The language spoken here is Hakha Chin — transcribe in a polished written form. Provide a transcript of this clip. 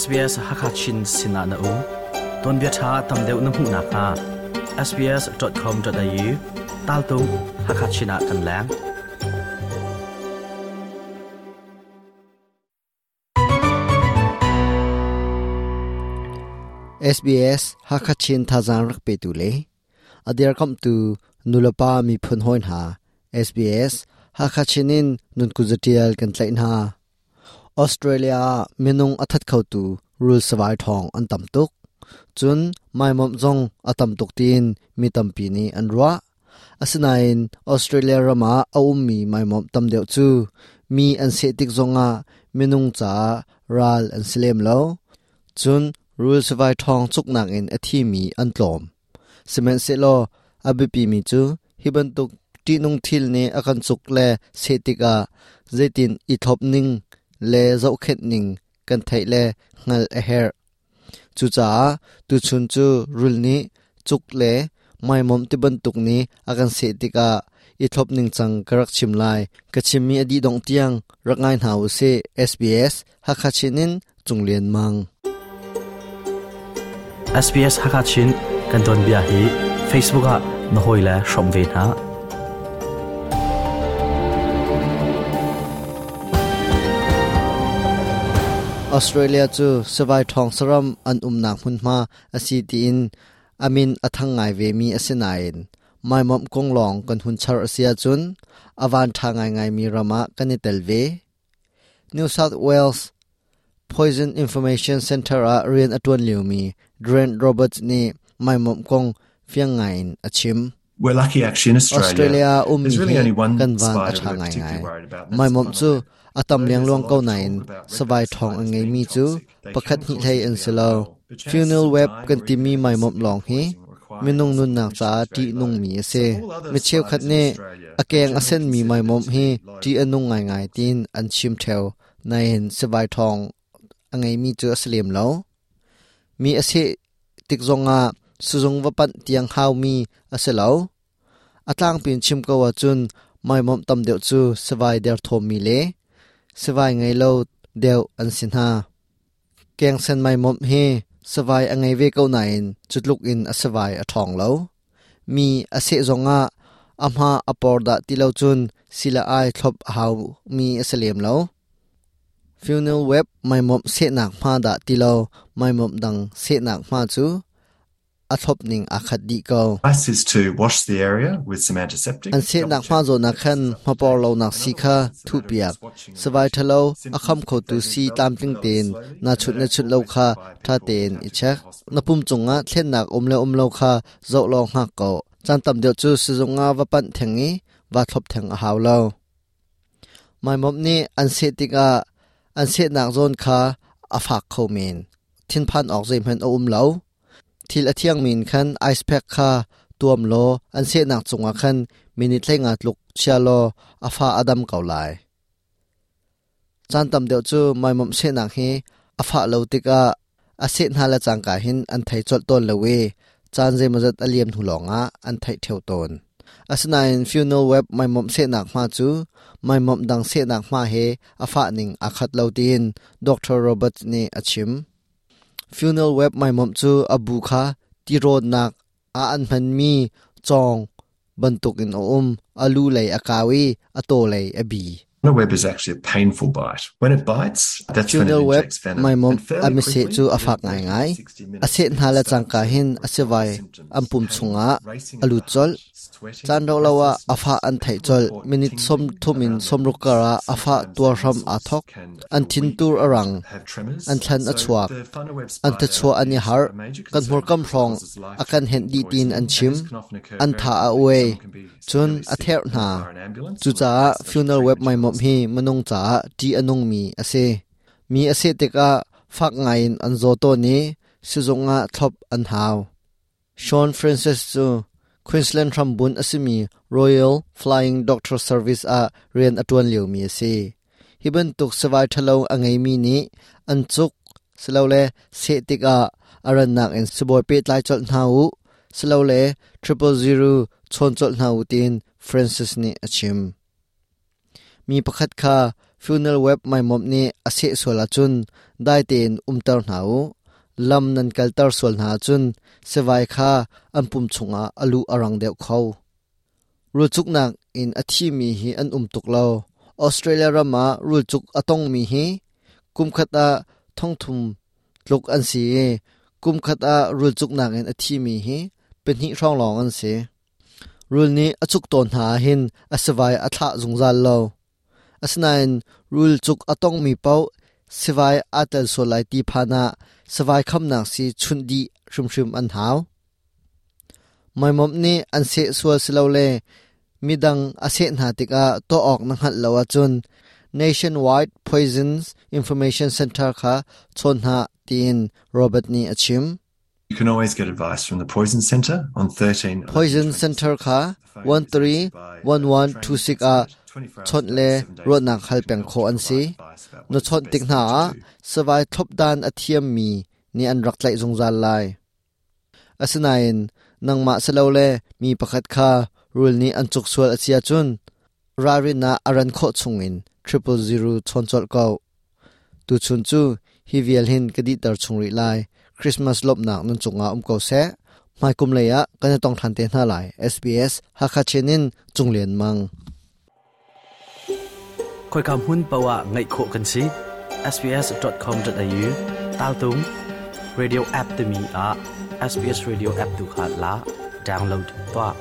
SBS Hakachin sinah na um. Tuanbia ṭha tam deuh na hmuh nakhnga sbs.com.au taltung Hakachin ah kan leng. SBS Hakachin thazaang rak petu le a dirkamhtu nulepa miphun hawi hna SBS Hakachin in nun kuzatial kan tlaih hna. Australia ah minung a that khotu rul savai ṭhawng an tam tuk. Cun maimawmh zong a tam tuk tiin mi tampi nih an ruah. Asinain Australia ram ah a ummi maimawmh tam deuh cu mi an seh tik zongah minung caah ral an si lem lo. Cun rul savai ṭhawng cuknak in a thimi an tlawm. Sihmanhsehlaw a biapimi cu hi bantuk ṭihnung thil nih a kan cuk le seh tikah zeitin i thlop ning le zohkhenh ning kan theih le hngalh a herh. Cucaah tuchun cu rul nih cuk le maimawm ti bantuk nih a kan seh tikah i thlop ningcang ka rak chim lai. Ka chimmi a dih dongh tiang rak ngai hna u sih. SBS Hakha Chin in Cung Lian Mang. SBS Hakha Chin kan tuanbia hi Facebook ah na hawile hrawm ve hna. Australia cu savai ṭhawng saram an umnak hmunhma a si tiin a min a thang ngai vemi a si nain maimawmh kong lawng kan hun char a si ahcun a van ṭha ngaingaimi ram ah kan i tel ve. New South Wales Poison Information Centre ah rian a ṭuan liomi Grant Roberts nih maimawmh kong fiang ngaiin a chim. We're lucky actually in Australia. Australia ummi There's really hi only one kan van a spider ṭha we're ngaingai. particularly worried about, and that's Maimawmh the cu funnel web. a tam Though there's a lengluang lot ko of nain talk about savai redback ṭhawng a spiders ngeimi being cu toxic, they pakhat can hnih cause hlei you to an be si lo. unwell, but chances Funnel of web dying kan or even timi having maimawmh severe lawng hi poisoning requiring minung hospital nunnak admission caah is very low. ṭihnungmi a So si. all other Mi cheukhat spiders in nih Australia a are keng a generally senmi considered maimawmh to hi be low ṭih a or nung ngaingai toxic. tiin an chim ṭheo. Nain sivai ṭhawng a ngeimi cu a si lem lo. Mi a seh tik zongah sizung va panh tiang haumi a si lo. A tlangpi in chim ko ahcun maimawmh tam deuh cu sivai derthawmmi le sivai ngei lo deuh an si hna. Kengsen maimawmh hi sivai a ngei ve ko nain cu tluk in a sivai a ṭhawng lo. Mi a seh zongah a hma a por dah ti lo cun sila ai thlop a haumi a si lem lo. Funnel web maimawmh sehnak hma dah ti lo maimawmh dang sehnak hma cu a thlop ning aa khat dih ko. Advice is to wash the area with some antiseptic. An sehnak hma zawn ah khan hmapor lonak sii kha thuhpiak. Savai ṭhalo a kham khotu sii tlamtling tein naa chunh le chunh lo kha ṭha tein i check. Na pum cungah thlennak um le um lo kha zoh law hngak ko. Caan tam deuh cu sizung ah va panh theng i vaa thlop theng a hau lo. Maimawmh nih an seh tikah an sehnak zawn kha a fak kho men. Thinphan awk zeihmanh a um lo. Thil a thiangmi in khan ice pack kha tuam law an sehnak cungah khan minute 15 tluk chia law a fa a dam ko lai. Caan tam deuh cu maimawmh sehnak hi a fah lo tikah a seh hna le cangka hin an thei colh tawn lo i caan zeimawzat a liam hnu lawngah an theih ṭheo tawn. Asinain funnel web maimawmh sehnak hma cu maimawmh dang sehnak hma he a fah ning aa khat lo tiin Dr. Roberts nih a chim. Funnel web maimawmh cu a bu kha tirawnnak ah an hmanmi cawng bantukin a um. A lu lei a kau i a taw lei a bi. Funnel web is actually a painful bite. When it bites, that's when it Funnel web injects venom. maimawmh And a fairly miseh quickly, cu a within fak 30 to ngaingai. 60 A minutes, seh you hna can le start cangka to hin a report sivai symptoms, an pum pain, chungah racing a of the lut colh. heart, sweating, Caan rauh lo ah a breathlessness. fah an theih People colh. report Minute tingling 30 in around their 60 lips. kar ah a fah Sometimes tuar their hram aa muscles thawk. can An feel thin weak tur a and rang. have tremors. An thlan a So chuak. the funnel web An spider thachuah an i is harh. a major Kan concern hmurkam because it hrawng causes a kan henh life-threatening dih tiin an poisoning, and chim. this can often occur An very tha a quickly. uai. Someone can be Cun severely a sick therh and hna. require an ambulance or Cucaah require special funnel web treatment in maimawmh hi hospital. minung caah ṭih a nungmi a si. Mi a seh tikah fak ngaiin an zaw tawn i sizung ah thlop an hau. Sean Francis cu Queensland hrambunh a simi Royal Flying Doctor Service ah rian a ṭuan liomi a si. Hi bantuk sivai ṭhalo a ngeimi nih an cuk silole seh tikah a rannak in sibawi pehtlai colh hna u silole 000 chawn colh hna u tiin Francis nih a chim. Mi pakhat kha Funnel web maimomh nih a seh sual ahcun dai tein umter hna u. Lam nan kalter sual hna ahcun sivai kha an pum chungah a luh a rang deuh kho. Rulcuknak in a thimi hi an um tuk lo. Australia ram ah rulcuk a tongmi hi kumkhat ah thongthum tluk an si i kumkhat ah rulcuknak in a thimi hi pahnih hrawng lawng an si. Rul nih a cuk tawn hna ahhin a sivai a thlah zungzal lo. Asinain rul cuk a tongmi paoh sivai aa tel sual lai ti phan ah sivai khamnak sii chunh dih hrimhrim an hau. Maimomh nih an seh sual silole midang a seh hna tikah tuah awk na hngalh lo ahcun Nationwide Poisons Information Center kha chawn hna tiin Robert nih a chim. You can always get advice from the Poison Centre on 13 Poison Center kha 131126 ah chawnh le ruahnak hal peng khawh an si. Na chawnh tik hna ah savai thlopdan a thiammi nih an rak tlaih zungzal lai. Asinain nangmah silole mi pakhat kha rul nih an cuk sual a si ahcun ralrin ah a ran khawh chungin 000 chawn colh ko. Tuchun cu hi vial hin ka dihter chung rih lai. Christmas lawmhnak nan cungah um ko seh. Hmaikum lei ah kan i tong ṭhan te hna lai. SBS Hakha Chin in Cung Lian Mang. Khoika hmun paoh ah ngaih khawh kan si. sbs.com.au taltung radio app timi ah SBS radio app tu kha la download tuah.